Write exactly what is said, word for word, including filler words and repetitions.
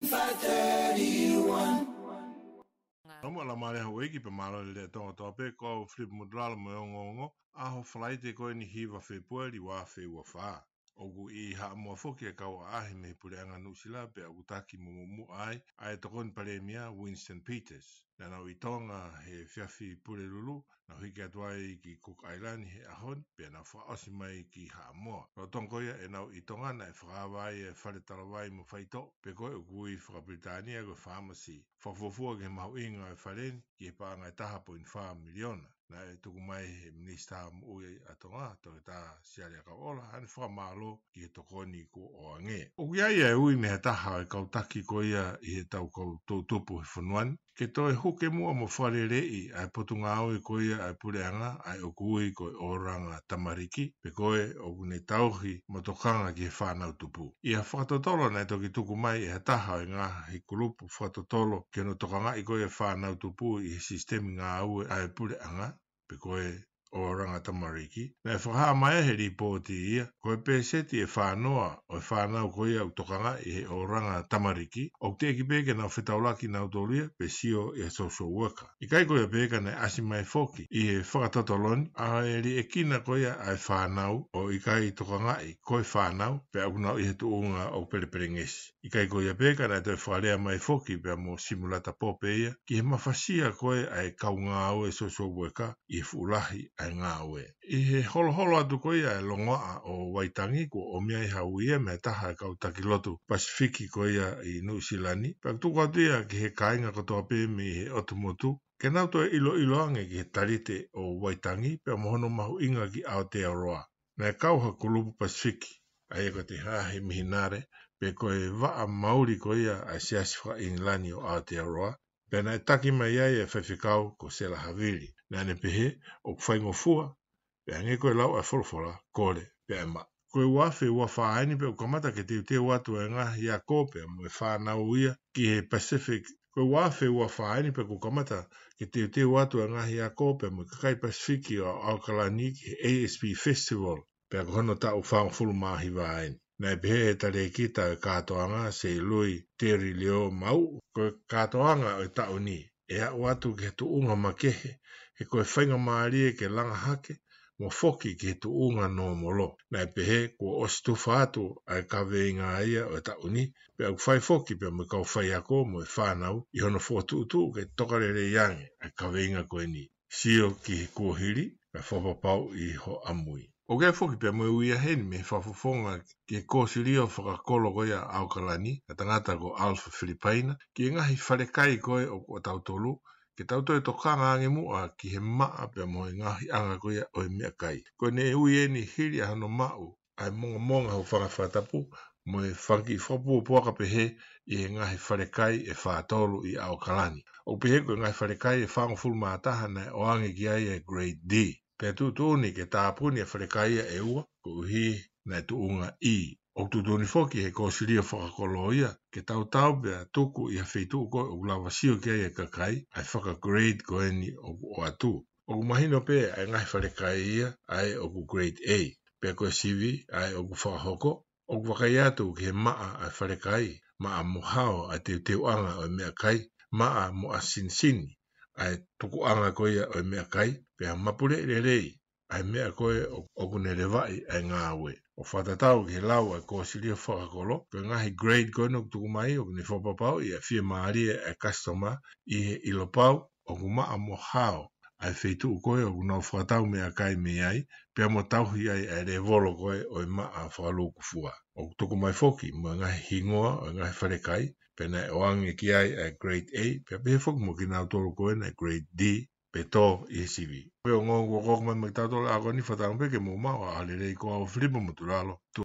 Five thirty-one. Nau mo ala male hau eiki pe malo le le tonga toa pe ko au Filipe Motulalo mo e ongoongo, ʻaho Falaite ko eni hiva Fepueli ua afe ua fā. ʻOku ʻi Haʻamoa foki e kau ʻaʻahi mei he puleʻanga Nuʻusila pea ʻoku taki mo muʻomuʻa ai ʻa e tokoni palēmia Winston Peters. Naʻa nau ʻi Tonga he efiafi Pulelulu, nau hiki atu ai ki Cook Island he ʻaho ni, pea nau fakaʻosi mai ki Haʻamoa. Lolotonga ko ia ʻenau ʻi Tonga naʻe fakaava ai e fale talavai mo faitoʻo, pe ko e ʻoku ui fakapilitānia ko e pharmacy. Fakafuofua ki he mahuʻinga e fale ni, ki he paʻanga ʻe taha poini fā miliona. Naʻe tuku mai he Minisitā Moʻui ʻa Tonga, Toketā Siale ʻAkauʻola, ʻa ʻene fakamālō ki he tokoni kuo ʻoange. ʻOku ʻi ai e ui mei he taha e kau taki ko ia ʻi he tau kau toʻutupu he fonua ni, ke toe huke muʻa mo fakaleleiʻi ʻa e potungāue ko ia ʻa e puleʻanga, ʻa ia ʻoku ui ko e ʻōlanga tamariki, pe ko e ʻoku ne tauhi mo tokanga ki he fānau tupu. ʻI ha fakatotolo naʻe toki tuku mai ʻe ha taha ʻo e ngaahi kulupu fakatotolo ki hono tokangaʻi ko ia e fānau tupu ʻi he sisitemi ngāue ʻa e puleʻanga, pe ko e ʻōlanga tamariki, naʻe fakahā mai he lipooti ia, ko e pēseti ʻe fā noa ʻo e fānau ko ia ʻoku tokangaʻi he ʻōlanga tamariki, ʻoku teʻeki pē ke nau fetaulaki nautolu ia pe sio ʻi he social worker. ʻIkai ko ia pē ka naʻe ʻasi mai foki ʻi he fakatotolo ni ʻa e liʻekina ko ia ʻa e fānau ʻoku ʻikai tokangaʻi ko e fānau, pea ʻoku nau ʻi he tuʻunga ʻoku pelepelengesi. ʻIkai ko ia pē ka naʻe toe fakalea mai foki pea mo Simulata Pope ia, ki he mafasia ko ē ʻa e kau ngāue social worker ʻi he fuʻu lahi ʻa e ngāue. ʻI he holoholo atu ko ia e longoaʻa ʻo Vaitangi, kuo ʻomi ai ha ui ia mei he taha e kau taki lotu Pasifiki ko ia ʻi Nuʻusila ni, pea tuku atu ia ki he kāinga kotoa pē mei he ʻotu motu, ke nau toe ʻiloʻilo ange ki he talite ʻo Vaitangi, pea mo hono mahuʻinga ki Aotearoa. Naʻe kau ha kulupu Pasifiki, ʻa ia ko e Te Haahi Mihinare, pe ko e vaʻa mauli ko ia ʻa e Siasi faka-ʻIngilani ʻo Aotearoa, pea naʻe taki mai ai e faifekau ko Sela Havili. Naʻa ne pehē, ʻoku faingofua, pea hangē ko e lau ʻa e folofola, kole, pea ʻe maʻu. Ko e ua afe ua fā eni pea ʻoku kamata ke teuteu atu e ngaahi ako pea mo e fānau ia ki he Pacific. Ko e ua afe ua fā eni pea ʻoku kamata ke teuteu atu e ngaahi ako pea mo e kakai Pasifiki ʻo ʻAokalani ki he A S P Festival, pea ko hono taʻu fāngofulu mā hiva eni. Naʻe pehē ʻe he talēkita e kātoanga, Seilui Teri Leo Mau, ko e kātoanga ʻo e taʻu ni ʻe aʻu atu ki he tuʻunga makehe, he ko e faingamālie ke langa hake mo foki ki he tuʻunga nōmolo. Naʻe pehē kuo ʻosi tufa atu ʻa e kaveinga ia ʻo e taʻu ni, pea ʻoku fai foki pea mo e kau faiako mo e fānau ʻi hono fokotuʻutuʻu ke tokalelei ange ʻa e kaveinga ko eni. Sio ki he kuohili, kae fakapapauʻi ho ʻamui. ʻOku ʻi ai foki pea mo e ui ʻa heni mei he fakafofonga ki he kōsilio fakakolo ko ia ʻAokalani, ʻa e tangata ko Alpha Filipaina, ki he ngaahi falekai ko ē ʻo, ʻo tautolu, ke tau toe tokanga ange muʻa ki he maʻa pea mo e ngaahiʻanga ko ia ʻo e meʻakai. Ko ʻene ui eni hili ʻa hono maʻu ʻa e mongamonga hūfanga he fakatapu, mo e fanga kiʻi fakapuapuaka pehē ʻi he ngaahi falekai ʻe fā tolu ʻi ʻAokalani. ʻOku pehē ko e ngaahi falekai ʻe fāngofulu mā taha naʻe ʻoange ki ai e grade D. Pea tuʻutuʻuni ke tāpuni e falekai ia ʻe ua, koeʻuhi naʻe tuʻunga E. ʻOku tuʻutuʻuni foki he kōsilio fakakolo ia, ke tautau pea tuku ʻi ha feituʻu ko ē ʻoku lava sio ki ai e kakai, ʻa e fakagrade ko eni ʻoku ʻoatu. ʻOku mahino pē ʻa e ngaahi falekai ia, ʻa ē ʻoku grade A. Pea ko e sivi ʻa ē ʻoku fakahoko, ʻoku vakai atu ki he maʻa ʻa e falekai, maʻa mo hao ʻa e teuteuʻanga ʻo e meʻakai, maʻa mo ʻasinisini ʻa e tukuʻanga ko ia ʻo e meʻakai, pea mapuleʻi lelei ʻa e meʻa ko ē ʻo, ʻoku ne levaʻi ʻa e ngāue. ʻO fakatatau ki he lau ʻa e kōsilio fakakolo, ko e ngaahi grade ko eni ʻoku tuku mai, ʻoku ne fakapapauʻi ʻa e fiemālie ʻa e kasitoma ʻi he ʻilo pau ʻoku maʻa mo hao ʻa e feituʻu ko ē ʻoku nau fakatau meʻakai mei ai, pea mo tauhi ai ʻa e lēvolo ko ē ʻo e maʻa fakalūkufua. ʻOku tuku mai foki mo e ngaahi hingoa ʻo e ngaahi falekai, pea naʻe ʻoange ki ai ʻa e grade A, pea pehē foki mo kinautolu ko ē naʻe grade D, pe tō ʻi he sivi. Pea ongoongo kuo koko mai maʻa kitautolu ʻa ē ko eni, fakatauange pē ke mou maʻu ʻa e ʻaho lelei, ko au Filipe Motulalo, tu